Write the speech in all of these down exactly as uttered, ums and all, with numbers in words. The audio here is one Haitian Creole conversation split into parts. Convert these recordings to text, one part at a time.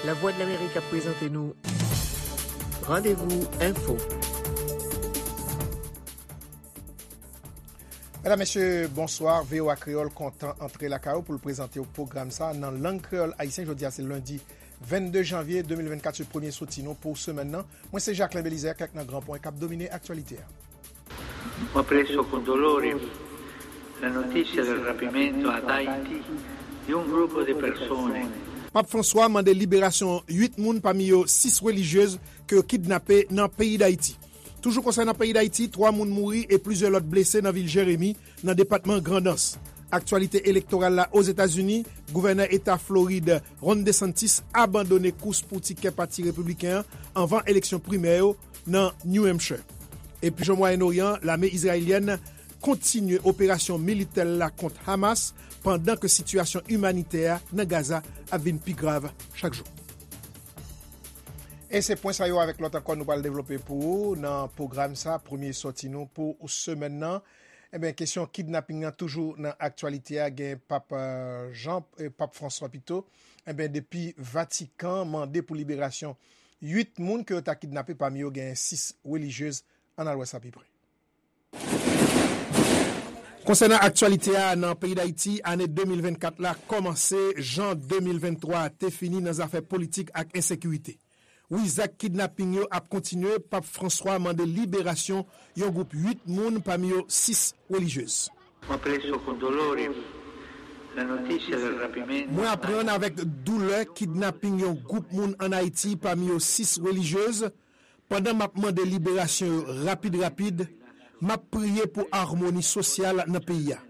Lavwadlamerik ap prezante nou Randevou Enfo. Medam, mesye, bonswa. V O A Kreyòl kontan antre lakay ou pou l prezante w pwogram sa nan lang kreyòl ayisyen. Jodi a se lendi vennde janvye de mil vennkat, se premye soti nou pou semèn nan. Mwen se Jacquelin Belizaire, kèk nan gran pwen k ap domine aktyalite a. Ho preso con dolore la notizia del rapimento ad Haiti di un gruppo di persone. Pap Franswa mande liberasyon uit moun, pami yo sis relijyez ke yo kidnape nan peyi Dayiti. Toujou konsènan peyi Dayiti, twa moun mouri e plizyè lòt blese nan vil Jeremi, nan depatman Grandans. Aktyalite elektoral la Ozetazini, gouvènè eta Florid Ron DeSantis abandone kous pou tikè pati repibliken an anvan eleksyon primè yo nan New Hampshire. Epi, jan Mwayen Oryan, lame izrayelyèn kontinye operasyon militè l la kont Hamas, pandan ke sitiyasyon imanitè a nan Gaza ap vin pi grav chak jou. E se pwen sa yo avèk lòt ankò nou pral devlope pou ou nan pwogram sa, premye sòti nou pou semèn nan. Ebyen, kesyon kidnaping nan toujou nan aktyalite a, gen Pap, eh, Jan, eh, Pap Franswa pito. Ebyen, depi Vatikan mande pou liberasyon uit moun ke yo ta kidnape, pami yo gen sis relijyez. Ann al wè sa pi pre. Konsènan aktyalite a nan peyi Dayiti, ane de mil vennkat la kòmanse jan de mil venntwa te fini nan zafè politik ak ensekirite. Wi, zak kidnaping yo ap kontinye. Pap Franswa mande liberasyon yon gwoup uit moun, pami yo sis relijyez. Ho preso con dolore la notizia del rapimento. Mwen aprann avèk doulè kidnaping yon gwoup moun ann Ayiti, pami yo sis relijyez. Pandan m ap mande liberasyon yo rapid rapid, m ap priye pou amoni sosyal nan peyi a.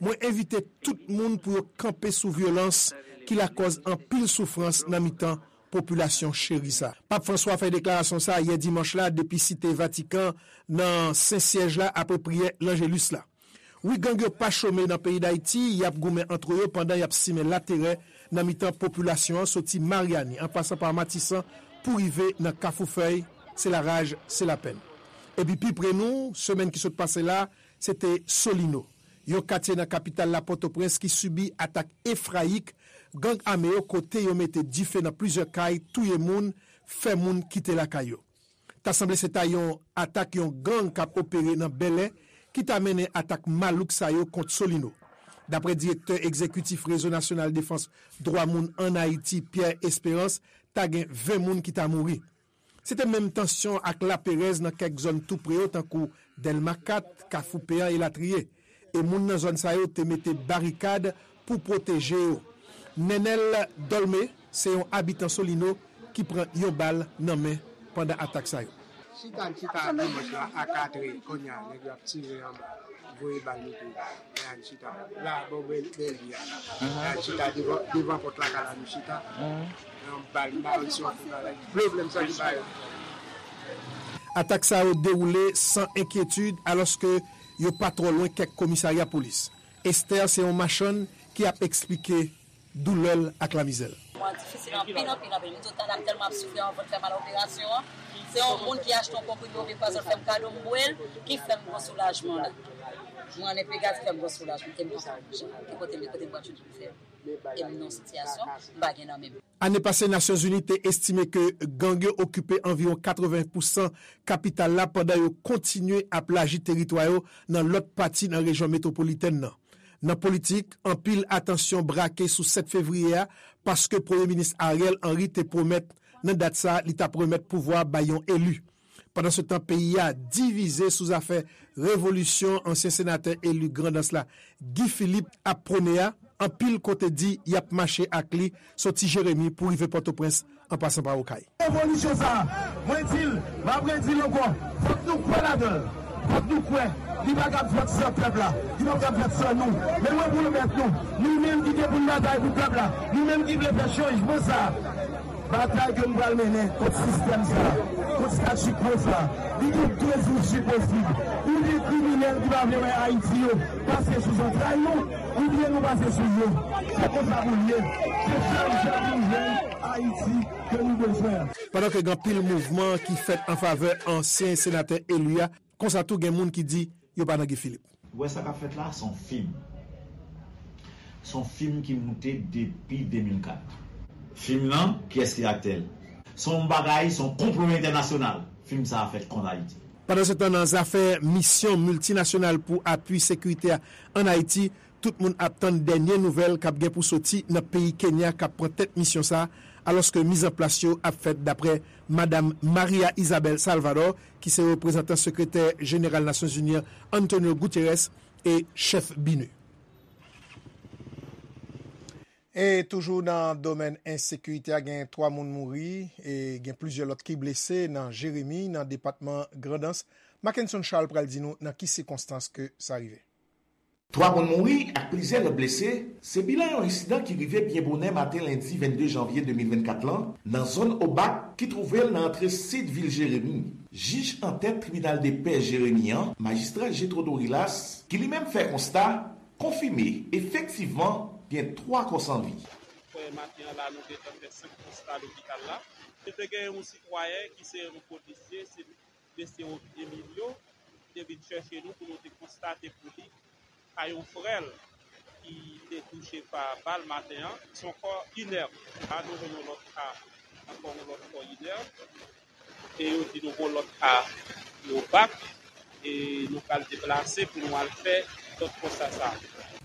Mwen envite tout moun pou yo kanpe sou vyolans ki lakòz anpil soufrans nan mitan popilasyon cheri sa. Pap Franswa fè deklarasyon sa yè dimanch la depi Site Vatikan nan Sen Syèj la apre priyè Lanjelis la. Wi, gang yo pa chome nan peyi Dayiti, y ap goumen antre yo pandan y ap simen laterè nan mitan popilasyon an, soti Maryani, an pasan pa Matisan, pou rive nan Kafou Fèy, se laraj, se lapenn. Epi pi pre nou, semèn ki sot pase la, se te Solino, yon katye nan kapital la Pòtoprens ki sibi atak efrayik gang ame yo, kote yo mete dife nan plizyè kay, touye moun, fè moun kite lakay yo. Ta sanble se ta yon atak yon gang k ap opere nan Bèlè ki ta mennen atak malouk sa yo kont Solino. Daprè direktè egzekitif Rezo Nasyonal Defans Dwa Moun ann Ayiti, Pierre Espérance, ta gen ven moun ki ta mouri. Se te menm tansyon ak laperèz nan kèk zòn tou pre yo, tankou Dèlma kat, Kafou Peyan elatriye. E moun nan zòn sa yo te mete barikad pou pwoteje yo. Nenel Dolmé se yon abitan Solino ki pran yon bal nan men pandan atak sa yo. Chita, n chita dimanch la a katrè, kounye a, nèg yo ap tire anba, voye bal nou tou. Lè a n chita. La, bò bèl, bèl vi a la. Lè a n chita devan, devan pòt lakay la, nou chita. Yon bal, m pa konn si w ap fè bagay. Vle, vle m santi bagay. Atak sa yo dewoule san enkyetid, alòske yo pa twò lwen kèk komisarya polis. Esther se yon machann ki ap eksplike doulè l ak lamizè l. Mwen difisil anpil, anpil, anpil. M di w, talè m tèlman ap soufri, anvan l fè mal operasyon an. Se yon moun ki achte yon konprime oubyen pwazon, l fè m kado, m bwè l, ki fè m gon soulajman la. Mwen ann enpe gad, fè m gon soulajman, ke m pa ka bouje. Ki kote m ye, kote m pral jwenn pou fè? E m nan sitiyasyon, m pa gen nan men m. Ane pase, Nasyonzini te estime ke gang yo okipe anviwon katreven pousan kapital la pandan yo kontinye ap laji teritwa yo nan lòt pati nan rejyon metwopolitèn nan. Nan politik, anpil atansyon brake sou sèt fevriye a, paske Premye Minis Ariel Henry te pwomèt nan dat sa a li t ap remèt pouvwa bay yon eli. Pandansetan, peyi a divize sou zafè revolisyon ansyen senatè eli Grandans la, Guy Philippe, ap pwone a, anpil kote di y ap mache ak li soti Jeremi pou rive Pòtoprens an pasan pa Okay. Revolisyon sa a, mwen di l, m ap redi l ankò, fòk nou kwè ladan l. Fòk nou kwè li pa kab fèt san pèp la, li pa kab fèt san nou. Men mwen pwomèt nou, nou menm ki gen pou n batay pou pèp la, nou menm ki vle fè chanjman sa a, batay ke nou pral mennen kont sistèm sa a, kont statu quo sa a, li gen de isi posib. Ou gen kriminèl ki pa vle wè Ayiti yo pase sou zantray nou, oubyen nou pase sou yo. Se konsa pou l ye. Se sèl jan pou n jwenn Ayiti ke nou bezwen an. Pandan ke gen anpil mouvman ki fèt an favè ansyen senatè eli a, konsa tou gen moun ki di yo pa nan Guy Philippe. Ou wè sa k ap fèt la, se yon fim. Se yon fim ki moute depi de mil kat. Fim nan, kiyès ki aktè l? Se yon bagay, se yon konplo entènasyonal. Fim sa a fèt kont Ayiti. Pandansetan, nan zafè misyon miltinasyonal pou apui sekirite a ann Ayiti, tout moun ap tann dènye nouvèl k ap gen pou soti nan peyi Kenya k ap pran tèt misyon sa a, alòske mizanplas yo ap fèt, daprè Madam Maria Isabel Salvador, ki se reprezantan sekretè jeneral Nasyonzini an, Antonio Guterres, e chèf BINUH. E toujou nan domèn ensekirite a, gen twa moun mouri e gen plizyè lòt ki blese nan Jeremi, nan depatman Grandans. Mackenson Charles pral di nou nan ki sikonstans ke sa rive. Twa moun mouri ak plizyè lòt blese, se bilan yon ensidan ki rive byen bonè maten lendi vennde janvye de mil vennkat lan, nan zòn Obak ki twouve l nan antre sid vil Jeremi. Jij antèt tribinal de pè Jeremi an, majistra Jetro Dorilas, ki li menm fè konsta, konfime efektivman gen twa kò san vi. Frè, maten an la, nou gentan fè senk konsta lopital la. Nou te gen yon sitwayen ki se yon polisye, se mesye Emilio, ki te vin chèche nou pou nou te konstate pou li ka yon frè l ki te touche pa bal maten an. Se yon kò inèb. La, nou jwenn yon lòt ka, ankò yon lòt kò inèb. E yo di nou gon lòt ka yo bak, e nou pral deplase pou nou al fè lòt konsta sa.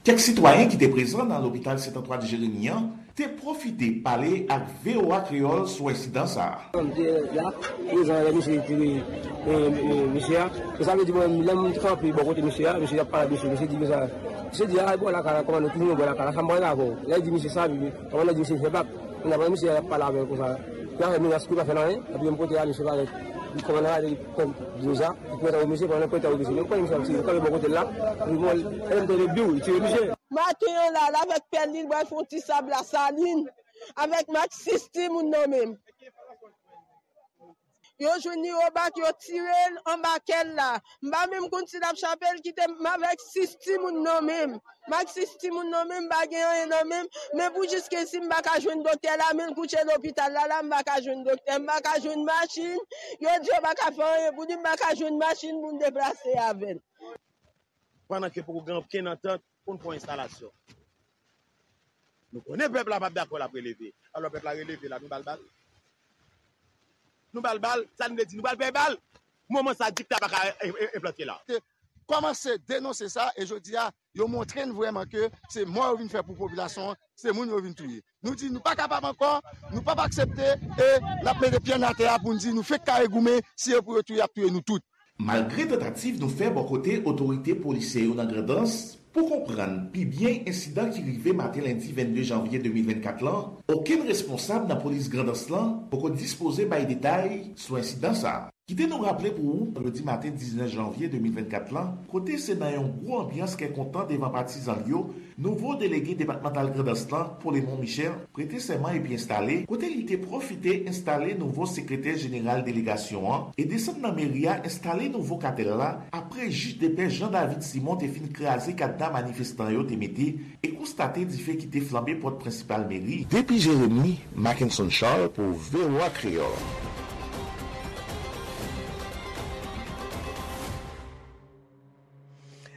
Kèk sitwayen ki te prezan nan lopital Sent Antwàn Jeremi an te pwofite pale ak V O A Kreyòl sou ensidan sa a. M te la, prezan lè misye tire, e, e, mesye a. E sa vle di, mwen, lè m kanpe bò kote mesye a, mesye ap pale ak misye, mesye di konsa, misye di, "A, bò lakay la, kòmandan, toujou bò lakay la, sa m pral avè w." Lè l di misye sa, kòmandan di misye fè bak. Kounya, pandan misye ap pale avè l konsa, y ap fè menas pou l pa fè l anyen, epi menm kote a, misye parèt, li kòmandan a, li pran deja, li pran misye, pandan pran misye, li kanpe bò kote l la, epi bon, lè l tande biw, li tire misye. Maten an la, l avèk pèl li, l pral fè yon ti sab Lasalin, avèk Max sis timoun nan men l. Yo jwenn li Obak, yo tire l anba kè l la. M pa menm konn si l ap chape l, kite m avèk sis timoun nan men m. M ak sis timoun nan men m, m pa gen anyen nan men m. Men pou jiskazi m pa ka jwenn doktè la, men l kouche lopital la, la m pa ka jwenn doktè, m pa ka jwenn machin. Yo di yo pa ka fè anyen pou li, m pa ka jwenn machin pou m deplase avè l. Pandan ke poko gen okenn antant pou n fè yon enstalasyon. Nou konnen pèp la p ap dakò, l ap releve. Alò pèp la releve la, nou ba l bal. Nou ba l bal, sa n vle di, nou ba l pè bal. Moman sa, dikta pa ka e, e, enplante la. Te kòmanse denonse sa, e jodi a, yo montre n vrèman ke se mò yo vin fè pou popilasyon an, se moun yo vin touye. Nou di nou pa kapab ankò, nou p ap aksepte, e n ap mete pye n atè a pou n di nou fenk kare goumen, si e pou yo touye, y ap touye nou tout. Malgre tantativ nou fè bò kote otorite polisyè yo nan Grandans pou konprann pi byen ensidan ki rive maten lendi vennde janvye de mil vennkat lan, okenn responsab nan polis Grandans lan poko dispoze bay detay sou ensidan sa a. Kite nou raple pou ou, vandredi maten diznèf janvye de mil vennkat lan, kote se nan yon gwo anbyans kè kontan devan patizan l yo, nouvo delege depatmantal Grandans lan, Polemon Michel, prete sèman epi enstale, kote li te pwofite enstale nouvo sekretè jeneral delegasyon an e desann nan meri a enstale nouvo katèl la, apre jij de pè Jean David Simon te fin kraze kadna manifestan yo te mete e konstate dife ki te flanbe pòt prensipal meri. Depi Jeremi, Mackenson Charles pou V O A Kreyòl.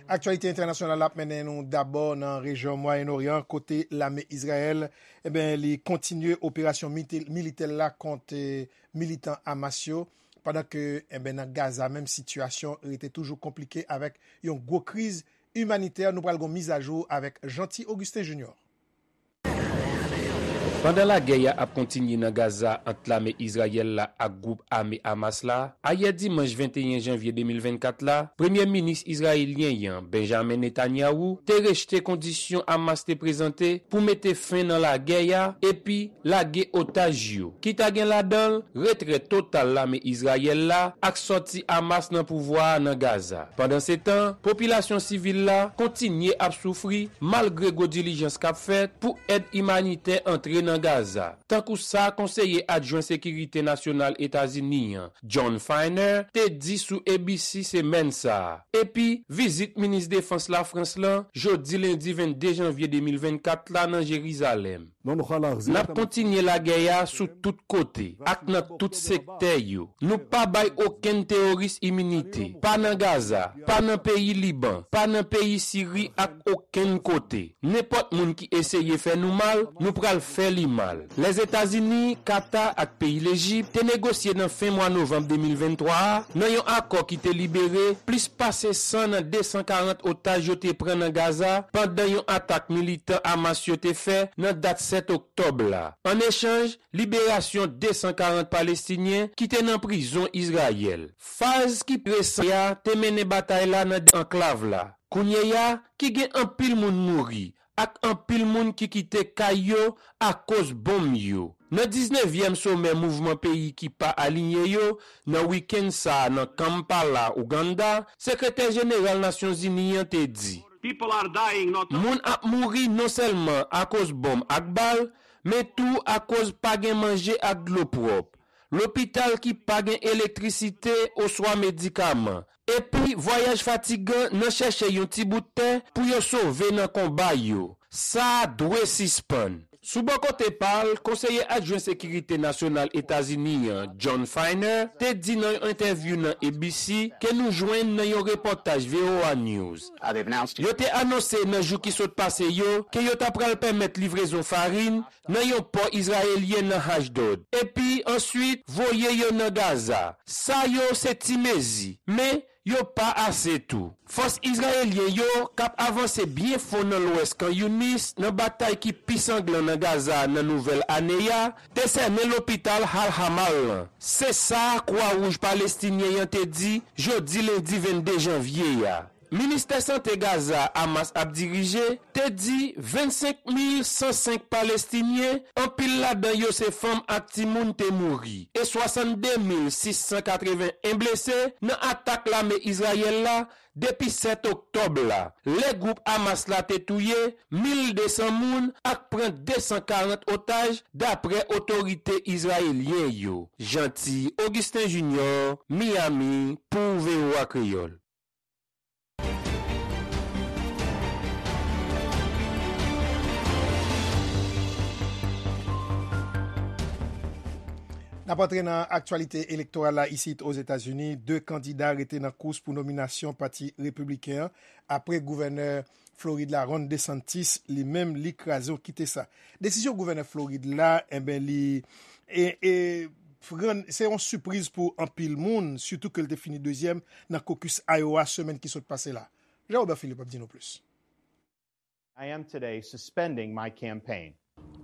Aktyalite entènasyonal ap mennen nou dabò nan rejyon Mwayen Oryan, kote lame Izrayèl, e ben, li kontinye operasyon mite-, militè l la kont, eh, militan Hamas yo, pandan ke, e ben, nan Gaza menm, sitiyasyon rete toujou konplike avèk yon gwo kriz imanitè. Nou pral gon mizajou avèk Jeanty Augustin Junior. Pandan lagè a ap kontinye nan Gaza ant lame Izrayèl la ak gwoup ame Hamas la, ayè dimanch venteyen janvye de mil vennkat la, premye minis izrayelyen an, Benjamin Netanyahu, te rejte kondisyon Hamas te prezante pou mete fen nan lagè a epi lage otaj yo, ki ta gen ladan l retrè total lame Izrayèl la ak sòti Hamas nan pouvwa a nan Gaza. Pandansetan, popilasyon sivil la kontinye ap soufri malgre gwo dilijans k ap fèt pou èd imanitè antre nan Gaza, tankou sa konseye adjwen sekirite nasyonal Etazini an, Jon Finer, te di sou A B C semèn sa a, epi vizit minis defans Lafrans lan jodi lendi vennde janvye de mil vennkat la nan Jerizalèm. N ap kontinye lagè a sou tout kote ak nan tout sektè yo. Nou pa bay okenn teworis iminite, pa nan Gaza, pa nan peyi Liban, pa nan peyi Siri ak okenn kote. Nenpòt moun ki eseye fè nou mal, nou pral fè li mal. Lèzetazini, Kata ak peyi Lejip te negosye nan fen mwa novanm de mil venntwa a nan yon akò ki te libere plis pase san nan de san karant otaj yo te pran nan Gaza pandan yon atak militan Hamas yo te fè nan dat sèt oktòb la. An echanj, liberasyon de san karant Palestinyen ki te nan prizon Izrayèl. Faz ki resan a te mennen batay la nan de anklav la, kounye a ki gen anpil moun mouri ak anpil moun ki kite kay yo akoz bonm yo. Nan diznevyèm somè mouvman peyi ki pa aliyen yo, nan wikenn sa a nan Kampala, Ouganda, Sekretè Jeneral Nasyonzini an te di, Moun ap mouri non sèlman akoz bonm ak bal, men tou akoz pa gen manje ak dlo pwòp, lopital ki pa gen elektrisite oswa medikaman, epi vwayaj fatigan nan chèche yon ti bout tè pou yo sove nan konba yo. Sa a dwe sispann. Sou bò kote pa l, konseye adjwen sekirite nasyonal Etazini an, John Finer, te di nan yon entèvyou nan A B C ke nou jwenn nan yon repòtaj V O A News. Yo te anonse nan jou ki sot pase yo ke yo ta pral pèmèt livrezon farin nan yon pò izrayelyen nan Ashdod, epi answit voye yo nan Gaza. Sa yo se ti mezi, men yo pa ase tou. Fòs izrayelyen yo, k ap avanse byen fon nan lwès Khan Younis nan batay ki pi sanglan nan Gaza nan nouvèl ane a, te sènen lopital Al Hamal lan. Se sa Kwa Wouj Palestinyen an te di jodi lendi vennde janvye a. Ministè Sante Gaza Hamas ap dirije te di vennsenk mil san senk Palestinyen, anpil ladan yo se fanm ak timoun, te mouri e swasannde mil sis san katreven en blese nan atak lame Izrayèl la depi sèt oktòb la, lè gwoup Hamas la te touye mil de san moun ak pran de san karant otaj, dapre otorite izrayelyen yo. Jeanty Augustin Junior, Miami, pou V O A Kreyòl. N ap antre nan aktyalite elektoral la isit Ozetazini. De kandida rete nan kous pou nominasyon Pati Repibliken an apre gouvènè Florid la, Ron DeSantis, li menm, li kraze, w kite sa. Desizyon gouvènè Florid la, enben, li e, e, rann, se yon sipriz pou anpil moun, sitou ke l te fini dezyèm nan kokis Iowa semèn ki sot pase la. Jean Robert Philippe ap di nou plis. I am today suspending my campaign.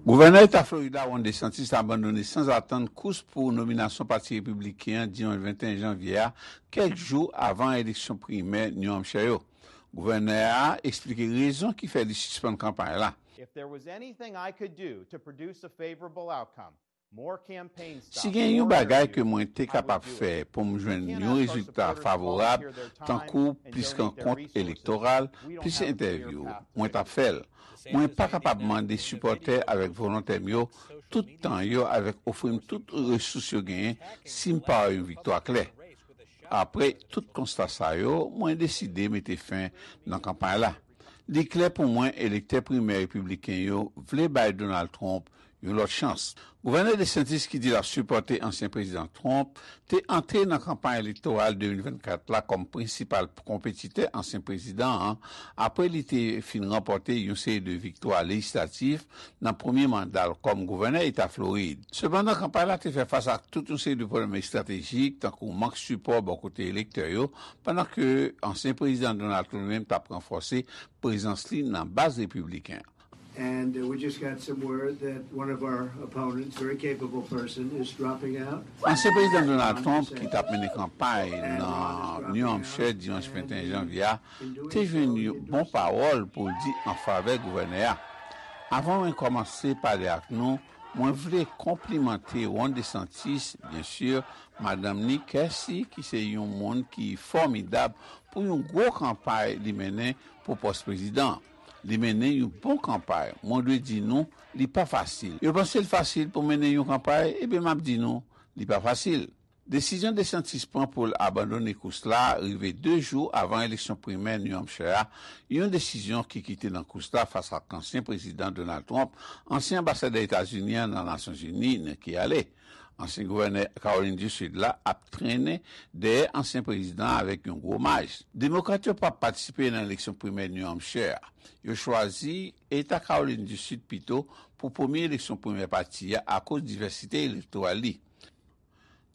Gouvènè Eta Florida Ron DeSantis abandone sanzatann kous pou nominasyon Pati Repibliken an dimanch venteyen janvye a, kèk jou avan eleksyon primè New Hampshire yo. Gouvènè a eksplike rezon ki fè li sispann kanpay la. If there was anything I could do to produce a favorable outcome, more campaign stops, Si gen yon bagay ke mwen te kapab fè pou m jwenn yon rezilta favorab, tankou plis rankont elektoral, plis entèvyou, mwen t ap fè l. Mwen pa kapab mande sipòtè avèk volontè m yo tout tan yo avèk ofri m tout resous yo genyen si m pa wè yon viktwa klè. Apre tout konsta sa yo, mwen deside mete fen nan kanpay la. Li klè pou mwen elektè primè repibliken yo vle bay Donald Trump yon lòt chans. Gouvènè DeSantis, ki di l ap sipòte ansyen prezidan Trump, te antre nan kanpay elektoral de mil vennkat la kòm prensipal konpetitè ansyen prezidan an, apre li te fin ranpòte yon seri de viktwa lejislatif nan premye manda l kòm gouvènè eta Florid. Sepandan, kanpay la te fè fas ak tout yon seri de pwoblèm estratejik, tankou mank sipò bò kote elektè yo, pandan ke ansyen prezidan Donald Trump menm t ap ranfòse prezans li nan baz repibliken. And uh, we just got some word that one of our opponents, very capable person, is dropping out. Ansyen prezidan Donald Trump, ki t ap mennen kanpay nan New Hampshire dimanch venteyen janvye a, te jwenn yon bon pawòl pou l di an favè gouvènè a. Avan mwen kòmanse pale ak nou, mwen vle konplimante Ron DeSantis, byen si, madanm ni Kèsi, ki se yon moun ki fòmidab pou yon gwo kanpay li mennen pou pòs prezidan. Li mennen yon bon kanpay. Mwen dwe di nou, li pa fasil. Yo panse l fasil pou mennen yon kanpay, ebyen m ap di nou, li pa fasil. Desizyon DeSantis pran pou l abandone kous la rive de jou avan eleksyon primè New Hampshire a, yon desizyon ki kite nan kous la fas ak ansyen prezidan Donald Trump, ansyen anbasadè Etazini an nan Nasyonzini, Nikki Haley. Ansyen gouvènè Kawolin di Sid la ap trennen dèyè ansyen prezidan an avèk yon gwo maj. Demokrat yo p ap patisipe nan eleksyon primè New Hampshire a. Yo chwazi Eta Kawolin di Sid pito pou premye eleksyon primè pati a akoz divèsite elektoral li.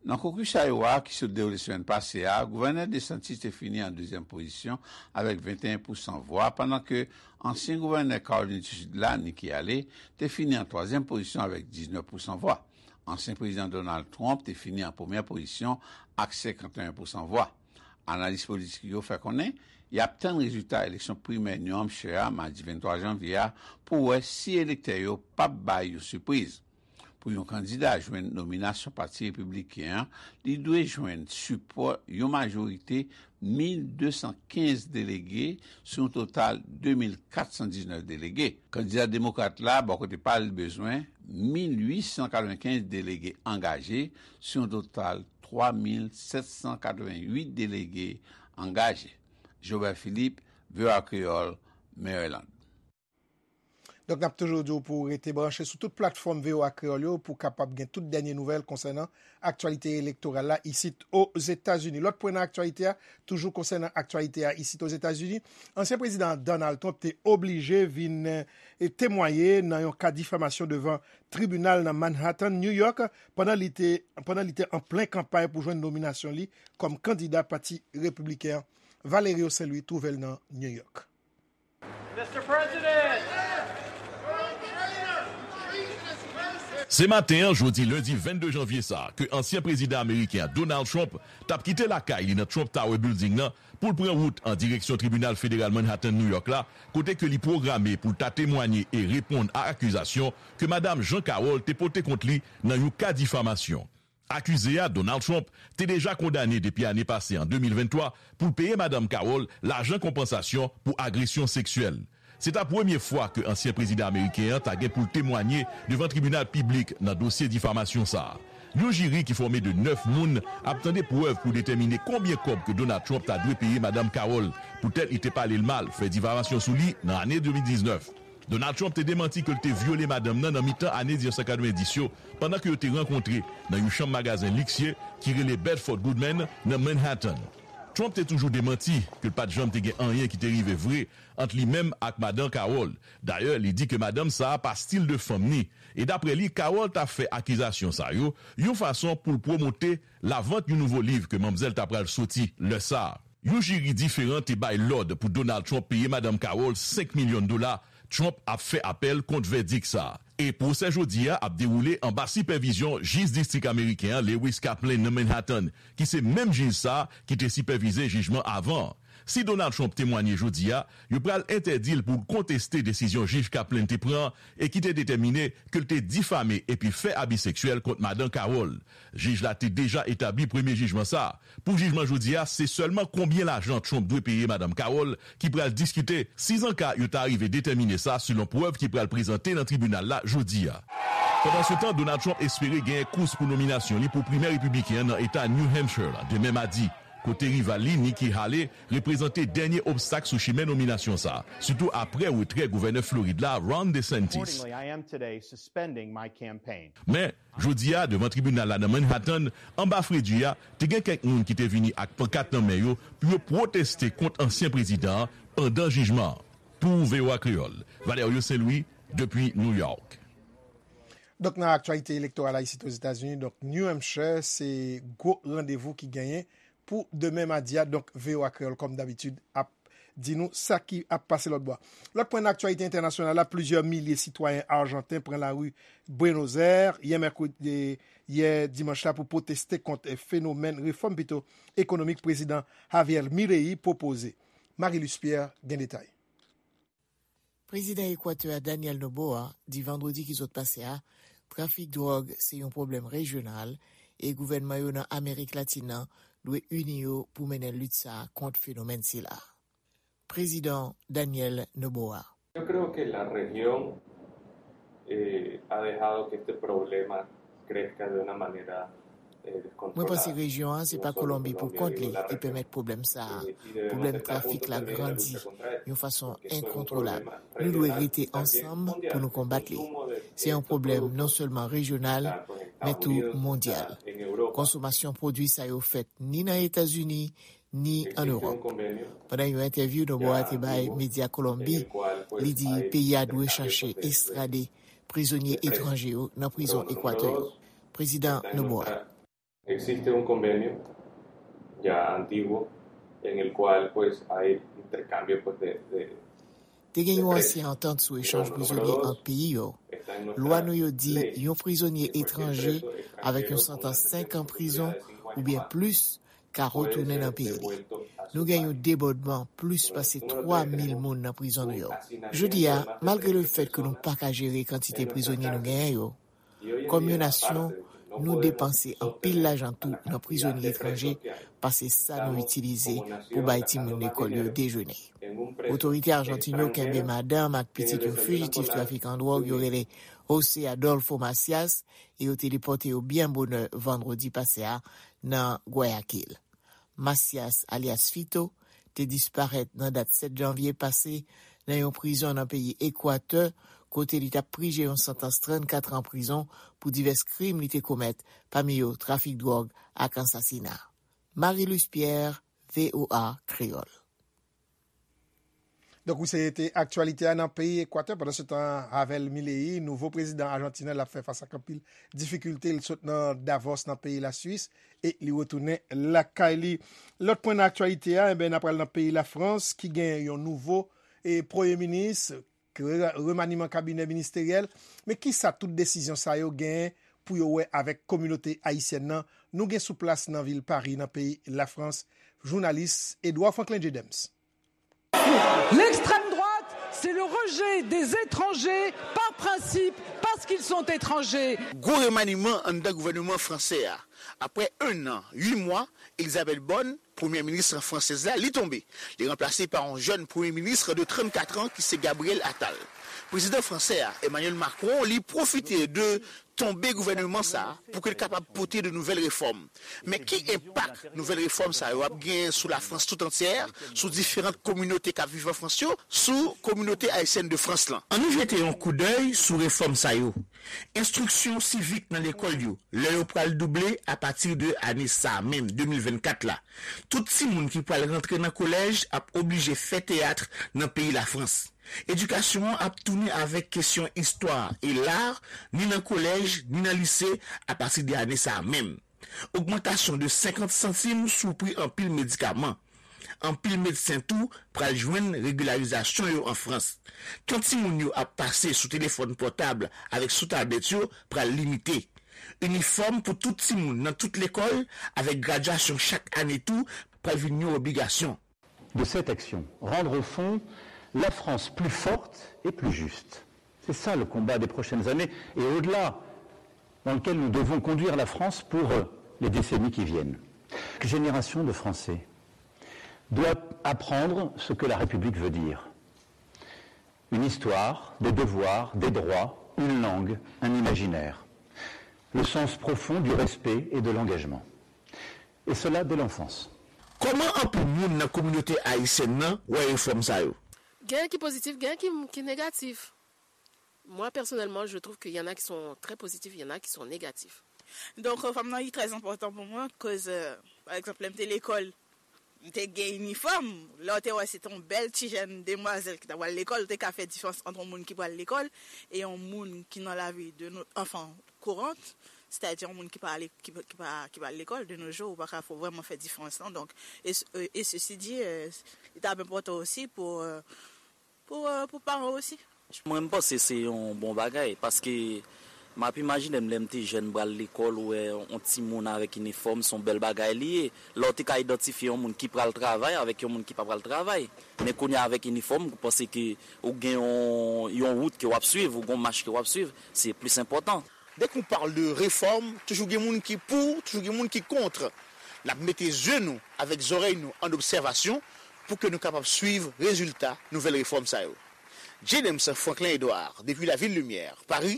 Nan kokis Iowa a ki sot dewoule semèn pase a, gouvènè DeSantis te fini an dezyèm pozisyon avèk venteyen pousan vwa, pandan ke ansyen gouvènè Kawolin di Sid la, Nikki Haley, te fini an twazyèm pozisyon avèk diznèf pousan vwa. Ansyen prezidan Donald Trump te fini an premyè pozisyon ak senkanteyen pousan vwa. Analis politik yo fè konnen y ap tann rezilta eleksyon primè New Hampshire a madi venntwa janvye a pou wè si elektè yo p ap bay yon sipriz. Pou yon kandida jwenn nominasyon Pati Repibliken an, li dwe jwenn sipò yon majorite mil de san kenz delege sou yon total de mil kat san diznèf delege. Kandida demokrat la, bò kote pa l, bezwen mil uit san katrevenkenz delege angaje sou yon total twa mil sèt san katreventuit delege angaje. Jobert Philippe, V O A Kreyòl, Maryland. Donk, n ap toujou di w pou w rete branche sou tout platfòm V O A Kreyòl yo pou w kapab gen tout dènye nouvèl konsènan aktyalite elektoral la isit Ozetazini. Lòt pwen nan aktyalite a, toujou konsènan aktyalite a isit Ozetazini, ansyen prezidan Donald Trump te oblije vin e, temwaye nan yon ka difamasyon devan tribinal nan Manhattan, New York, pandan li te, pandan li te an plen kanpay pou jwenn nominasyon li kòm kandida Pati Repibliken an. Valerio Saint Louis twouve l nan New York. Se maten an, jodi lendi vennde janvye sa a, ke ansyen prezidan ameriken an, Donald Trump, t ap kite lakay li nan Trump Tower Building nan pou l pran wout an direksyon Tribinal Federal Manhattan New York la, kote ke li pwograme pou l ta temwanye e reponn a akizasyon ke Madanm Jean Carroll te pote kont li nan yon ka difamasyon. Akize a, Donald Trump, te deja kondane depi ane pase an de mil venntwa pou l peye Madanm Carroll lajan konpansasyon pou agresyon seksyèl. Se ta premye fwa ke ansyen prezidan ameriken an ta gen pou l temwanye devan tribinal piblik nan dosye difamasyon sa a. Yon jiri ki fòme de nèf moun ap tande prèv pou detèmine konbyen kòb ke Donald Trump ta dwe peye Madanm Carroll poutèt li te pale l mal, fè difamasyon sou li nan ane de mil diznèf. Donald Trump te demanti ke l te vyole madanm nan nan mitan ane mil nèf san katrevenndis yo, pandan ke yo te rankontre nan yon chanm magazen liksye ki rele Bedford Goodman nan Manhattan. Trump te toujou demanti ke l pa t janm te gen anyen ki te rive vre ant li menm ak Madan Carroll. Dayè, li di ke madanm sa a pa stil de fanm ni, e daprè li, Carroll ta fè akizasyon sa yo yon fason pou l pwomote lavant yon nouvo liv ke manmzèl ta pral soti lè sa a. Yon jiri diferan te bay lòd pou Donald Trump peye Madanm Carroll senk milyon dola. Trump ap fè apèl kont vèdik sa a. E pwosè jodi a ap dewoule anba sipèvizyon jij distrik ameriken an, Lewis Kaplan, nan Manhattan, ki se menm jij sa a ki te sipèvize jijman avan an. Si Donald Trump temwanye jodi a, yo pral entèdi l pou l konteste desizyon jij Kaplan te pran e ki te detèmine ke l te difame epi fè abi seksyèl kont Madan Carroll. Jij la te deja etabli premye jijman sa a. Pou jijman jodi a, se sèlman konbyen lajan Trump dwe peye Madanm Carroll ki pral diskite, sizanka yo ta rive detèmine sa selon prèv ki pral prezante nan tribinal la jodi a. Pandansetan, Donald Trump espere genyen kous pou nominasyon li pou primè repibliken an nan eta New Hampshire la demen madi, kote rival li, Nikki Haley, reprezante dènye obstak sou chimen nominasyon sa a, sitou aprè retrè gouvènè Florid la, Ron DeSantis. Men, jodi a, devan tribinal la nan Manhattan, anba fredi a, te gen kèk moun ki te vini ak pankat nan men yo pou yo pwoteste kont ansyen prezidan an pandan jijman an. Pou V O A Kreyòl, Valerio Saint Louis, depi New York. Donk, nan aktyalite elektoral la isit Ozetazini, donk, New Hampshire, se gwo randevou ki genyen pou demen madi a. Donk, V O A Kreyòl, kòm dabitid, ap di nou sa ki ap pase lòt bò a. Lòt pwen nan aktyalite entènasyonal la, plizyè milye sitwayen ajanten pran lari Buenos Aires yè mèkredi, yè dimanch la pou pwoteste kont fenomèn refòm pito ekonomik prezidan Javier Milei pwopoze. Marie Luce Pierre gen detay. Prezidan Ekwatè a Daniel Noboa di vandredi ki sot pase a, trafik dwòg se yon pwoblèm rejyonal e gouvènman yo nan Amerik Latin nan dwe ini yo pou mennen lit sa a kont fenomèn sila. Prezidan Daniel Noboa. Yo creo que la región eh, ha dejado que este problema crezca de una manera Mwen panse rejyon an se pa Kolonbi pou kont li ki pèmèt pwoblèm sa a. Pwoblèm trafik la grandi yon fason enkontwolab. Nou dwe rete ansanm pou nou konbat li. Se yon pwoblèm non sèlman rejyonal, men tou mondyal. Konsomasyon pwodui sa yo fèt ni nan Etazini, ni ann Ewòp. Pandan yon entèvyou Noboa te bay medya Kolonbi, li di peyi a dwe chache estrade prizonye etranje yo nan prizon Ekwatè yo. Prezidan Noboa. Existe un convenio ya antiguo en el cual pues hay intercambio pues de, de Te gen yon ansyen antant sou echanj prizonye ant peyi yo. Lwa nou yo di yon prizonye etranje avèk yon santans senk an prizon oubyen plis ka retounen nan peyi li. Nou gen yon debòdman plis pase twa mil moun nan prizon nou yo. Jodi a, malgre lefèt ke nou pa ka jere kantite prizonye nou genyen yo, kòm yon nasyon, nou depanse anpil lajan tou nan prizonye etranje pase sa nou itilize pou bay timoun lekòl yo dejene. Otorite ajantin yo kenbe madanm ak pitit yon fijitif trafikan dwòg yo rele José Adolfo Macias e yo te depòte yo byen bonè vandredi pase a nan Guayaquil. Macias, alyas Fito, te disparèt nan dat sèt janvye pase nan yon prizon nan peyi Ekwatè, kote li t ap prije yon santans trannkat an prizon pou divès krim li te komèt, pami yo trafik dwòg ak ansasina. Marie-Luce Pierre, V O A Kreyòl. Donk, wi, se te aktyalite a nan peyi Ekwatè. Pandansetan, Javier Milei, nouvo prezidan ajantin an, l ap fè fas ak anpil difikilte. Li sot nan Davos, nan peyi Laswis, e li retounen lakay li. Lòt pwen nan aktyalite a, enben, n ap pral nan peyi Lafrans, ki gen yon nouvo e premye minis, re- remaniman kabinè ministeryèl. Men kisa tout desizyon sa yo genyen pou yo wè avèk kominote ayisyèn nan? Nou gen sou plas nan vil Pari, nan peyi Lafrans, jounalis Edouard Franklin Jedems. L'extrême droite, c'est le rejet des étrangers par principe, parce qu'ils sont étrangers. Gwo remaniman anndan gouvènman fransè a. Apre en an, uit mwa, Elisabeth Borne, premyè minis fransèz la, li tonbe. Li ranplase pa yon jèn premye minis de trannkat an ki se Gabriel Attal. Prezidan fransè a, Emmanuel Macron, li pwofite de tonbe gouvènman sa a pou ke l kapab pote de nouvèl refòm. Men ki enpak nouvèl refòm sa yo ap genyen sou Lafrans tout antyè, sou diferan kominote k ap viv an Frans yo, sou kominote ayisyèn de Frans lan? Ann nou jete yon koudèy sou refòm sa yo. Enstriksyon sivik nan lekòl yo, lè yo pral double apati de ane sa a menm, de mil vennkat la. Tout timoun ki pral rantre nan kolèj ap oblije fè teyat nan peyi Lafrans. Edikasyon an ap tounen avèk kesyon istwa e lar, ni nan kolèj, ni nan lise, apati de ane sa a menm. Ogmantasyon de senkant santim sou pri anpil medikaman. Anpil medsen tou pral jwenn regilarizasyon yo an Frans. Tan timoun yo ap pase sou telefòn pòtab avèk sou tablèt yo pral limite. Inifòm pou tout timoun nan tout lekòl, avèk gradyasyon chak ane tou, pral vin yon obligasyon. De cette action, rendre au fond la France plus forte et plus juste. C'est ça le combat des prochaines années et au-delà, dans lequel nous devons conduire la France pour euh, les décennies qui viennent. Chaque génération de Français doit apprendre ce que la République veut dire. Une histoire, des devoirs, des droits, une langue, un imaginaire. Le sens profond du respect et de l'engagement. Et cela dès l'enfance. Kòman anpil moun nan kominote ayisyèn nan wè refòm sa yo? Gen ki pozitif, gen ki, ki negatif. Moi, personnellement, je trouve qu'il y en a qui sont très positifs, il y en a qui sont négatifs. Donk, fanm nan li trè enpòtan pou mwen, koz, pa egzanp, lè m te lekòl, m te gen inifòm. Lè w te wè se te yon bèl ti jèn demwazèl ki t ap pral lekòl, ou te ka fè diferans ant yon moun ki pral lekòl e yon moun ki nan lavi de nou, anfen, kourant, sètadi yon moun ki pa ale, ki, ki pa, ki pa al lekòl de nos jours, ou pa ka fò vrèman fè diferans lan. Donk, e, e ceci dit, li t ap enpòtan osi pou, pou, pou paran osi. Mwen, m panse se yon bon bagay, paske m ap imajine m lè m te jèn, m pral lekòl, ou wè yon timoun avèk inifòm, se yon bèl bagay li ye. Lè w te ka idantifye yon moun ki pral travay avèk yon moun ki pa pral travay. Men kounye a, avèk inifòm, ou panse ke ou gen yon, yon wout ke w ap swiv, ou gen yon mach ke w ap swiv, se plis enpòtan. Dès qu'on parle de réforme, toujou gen moun ki pou, toujou gen moun ki kont. N ap mete zye nou avèk zòrèy nou an obsèvasyon pou ke nou kapab swiv rezilta nouvèl refòm sa yo. James Franklin Edouard, depi Lavil Limyè, Pari,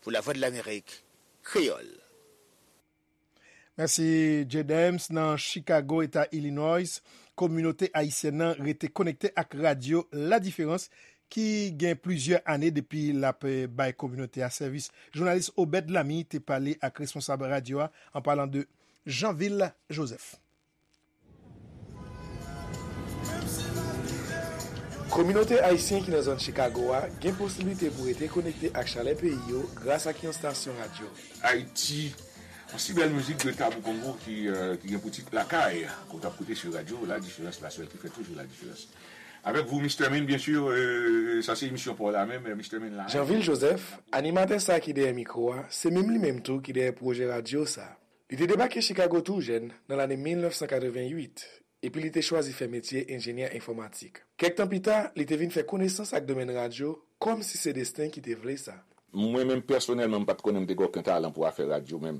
pou Lavwadlamerik Kreyòl. Mèsi, J Dems. Nan Chicago, eta Illinois, kominote ayisyèn nan rete konekte ak radyo La Différence, ki gen plizyè ane depi l ap, eh, bay kominote a sèvis. Jounalis Obed Lamy te pale ak responsab radyo a, an palan de Jeanville Joseph. Kominote ayisyen ki nan zòn Chicago a gen posiblite pou rete konekte ak chalè peyi yo gras ak yon stasyon radyo. Ayiti, yon si bèl mizik de Tabou Kongo ki, euh, ki gen pou tit Lakay, ke w t ap koute sou radyo La Différence, la sèl ki fè toujou la diferans. Avèk vou, Mister Min, byen si, euh, sa se emisyon pa w la menm, euh, Mister Min la. Jeanville Joseph, animatè sa ki dèyè mikwo a, se menm li menm tou ki dèyè pwojè radyo sa. Li te debake Chicago tou jèn, nan lane mil nèf san katreven uit, epi li te chwazi fè metye enjenyè enfòmatik. Kèk tan pita, li te vin fè konesans ak domèn radyo, kòmsi se desten ki te vle sa. Mwen menm, pèsonèlman, m pa t konnen m te gen okenn talan pou afè radyo menm.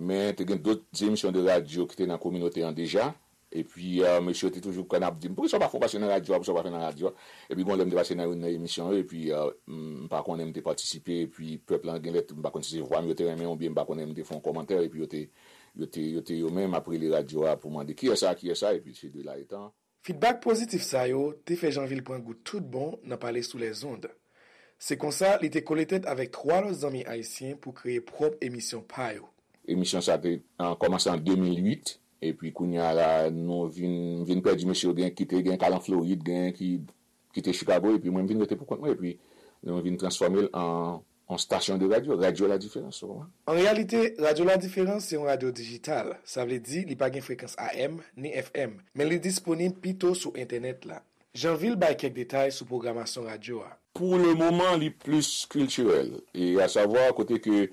Men, te gen dòt emisyon de radyo ki te nan kominote an deja. Epi, euh, mesye yo te toujou konn ap di m, "Poukisa w pa fè w pase nan radyo a, poukisa w pa fè nan radyo a?" Epi, gon lè m te pase nan youn nan emisyon yo, epi, euh, m pa konnen m te patisipe, epi pèp lan gen lè, m pa konn si se vwa m yo te renmen, oubyen m pa konnen m te fè yon kòmantè, epi yo te, yo te, yo te yo menm ap rele radyo a pou mande, "Kiyès sa, kiyès sa?" Epi, se de la etan. Fidbak pozitif sa yo te fè Jeanville pran gou tout bon nan pale sou lèzond. Se konsa, li te kole tèt avèk twa lòt zanmi ayisyen pou kreye pwòp emisyon pa yo. Emisyon sa te, an, kòmanse an de mil uit, epi kounye a la, nou vin, vin pèdi mesye yo, gen ki te, gen k al an Florid, gen ki kite Chicago, epi mwen, m vin rete pou kont mwen, epi nou vin transfòme l an, an stasyon de radyo, Radyo La Diferans, ou konprann? An reyalite, Radyo La Diferans se yon radyo dijital, sa vle di li pa gen frekans A M ni F M, men li disponib pito sou entènèt la. Jeanville bay kèk detay sou pwogramasyon radyo a. Pou le moman, li plis kiltirèl, e a savwa kote ke,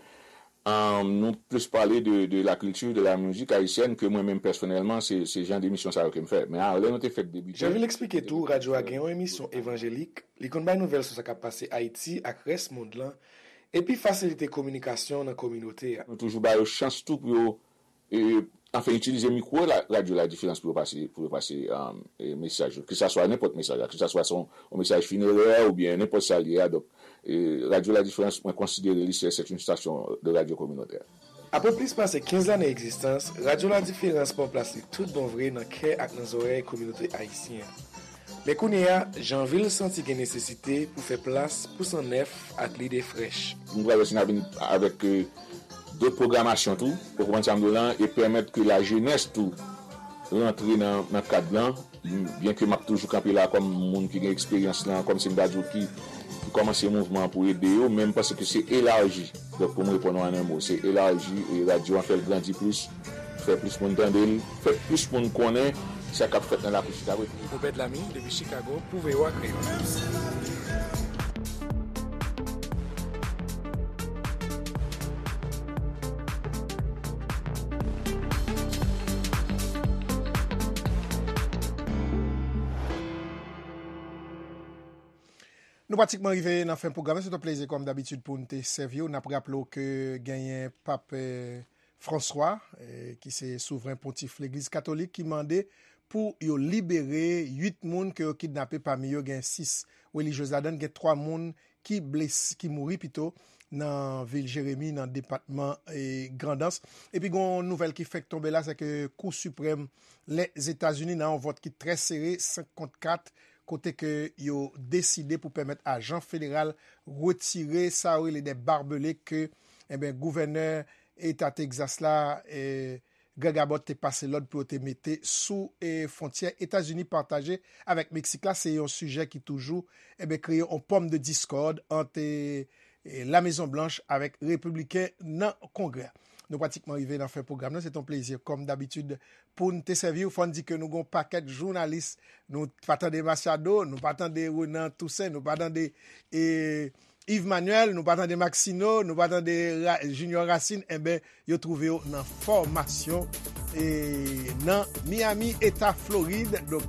um, nou plis pale de, de la kilti, de la mizik ayisyèn, ke mwen menm pèsonèlman, se, se jan de emisyon sa yo ke m fè. Men a, lè nou te fèk debite. Jeanville eksplike tou, radyo a gen yon emisyon evanjelik, li konn bay nouvèl sou sa k ap pase Ayiti ak rès mond lan, epi fasilite kominikasyon nan kominote a. Nou toujou ba yo chans tou pou yo e, anfen, itilize mikwo la, Radyo La Diferans pou yo pase, pou yo pase, um, e, mesaj yo. Ke sa swa nenpòt mesaj la, ke sa swa se yon, yon mesaj finerè oubyen nenpòt sa l ye a. Donk, e, Radyo La Diferans, mwen konsidere li se, c'est une station de radio communautaire. Apre plis pase kenz lane egzistans, Radyo La Diferans pran plas li tout bon vre nan kè ak nan zòrèy kominote ayisyen an. Men kounye a, Jeanville santi gen nesesite pou fè plas pou san nèf ak lide frèch. Nou pral wè si n a vin avèk, e, dòt pwogramasyon tou, ou konprann sa m di w lan, e pèmèt ke lajenès tou rantre nan, nan kad lan, byenke m ap toujou kanpe la kòm moun ki gen eksperyans lan, kòm se m ta di w ki, ki kòmanse mouvman an pou ede yo, men m panse ke se elaji. Donk, pou m reponn w an en mo, se elaji e radyo an fè l grandi plis, fè plis moun tande l, fè plis moun konnen sa k ap fèt nan lakou Chicago. Obed Lamy, depi Chicago, pou V O A Kreyòl. Nou pratikman rive nan fen pwogram nan. Se t yon plezi, kòm dabitid, pou n te sèvi w. N ap raple w ke genyen Pap, eh, Franswa, eh, ki se souvren pontif Legliz Katolik, ki mande pou yo libere uit moun ke yo kidnape. Pami yo, gen sis relijyez ladan l, gen twa moun ki blese, ki mouri pito, nan vil Jeremi, nan depatman, eh, Grandans. Epi, gen yon nouvèl ki fèk tonbe la, se ke Kou Siprèm Lèzetazini, nan yon vòt ki trè sere, senk kont kat, kote ke yo deside pou pèmèt ajan federal retire sa yo rele de barbele ke, enben, gouvènè eta Tegzas la, eh, Greg Abbott te pase lòd pou yo te mete sou, eh, fwontyè Etazini pataje avèk Meksik la. Se yon sijè ki toujou, enben, kreye yon pòm de diskòd ant, eh, e, La Mezon Blanch avèk repibliken nan Kongrè a. Nou pratikman rive nan fen pwogram nan. Se t yon plezi, kòm dabitid, pou n te sèvi w. Fò n di ke nou gen yon pakèt jounalis. Nou pa tande Machado, nou pa tande Renan Toussaint, nou pa tande, e, Yves Manuel, nou pa tande Maxino, nou pa tande Ra-, Junior Racine. Enben, yo twouve yo nan fòmasyon, e, nan Miami, eta Florid. Donk,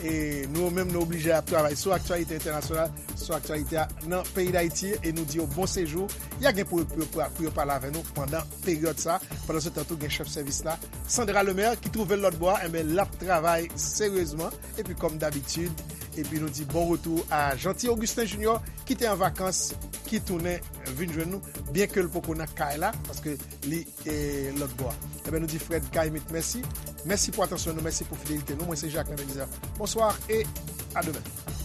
e, nou menm, nou oblije ap travay sou aktyalite entènasyonal, sou aktyalite a nan peyi Dayiti, e nou di yo bon sejou. Y a gen pou, pou, pou, pou yo pale avè nou pandan peryòd sa. Pandan se tan tou, gen chèf sèvis la, Sandra Lemaire, ki twouve l lòt bò a, enben, l ap travay seryezman. Epi, kòm dabitid, epi nou di bon retou a Jeanty Augustin Junior, ki te an vakans, ki tounen vin jwenn nou, byenke l poko nan kay la, paske li, e, lòt bò a. Ebyen, nou di Fred Caïmite mèsi. Mèsi pou atansyon nou, mèsi pou fidelite nou. Mwen se Jacques Belizaire. Bonsoir et à demain.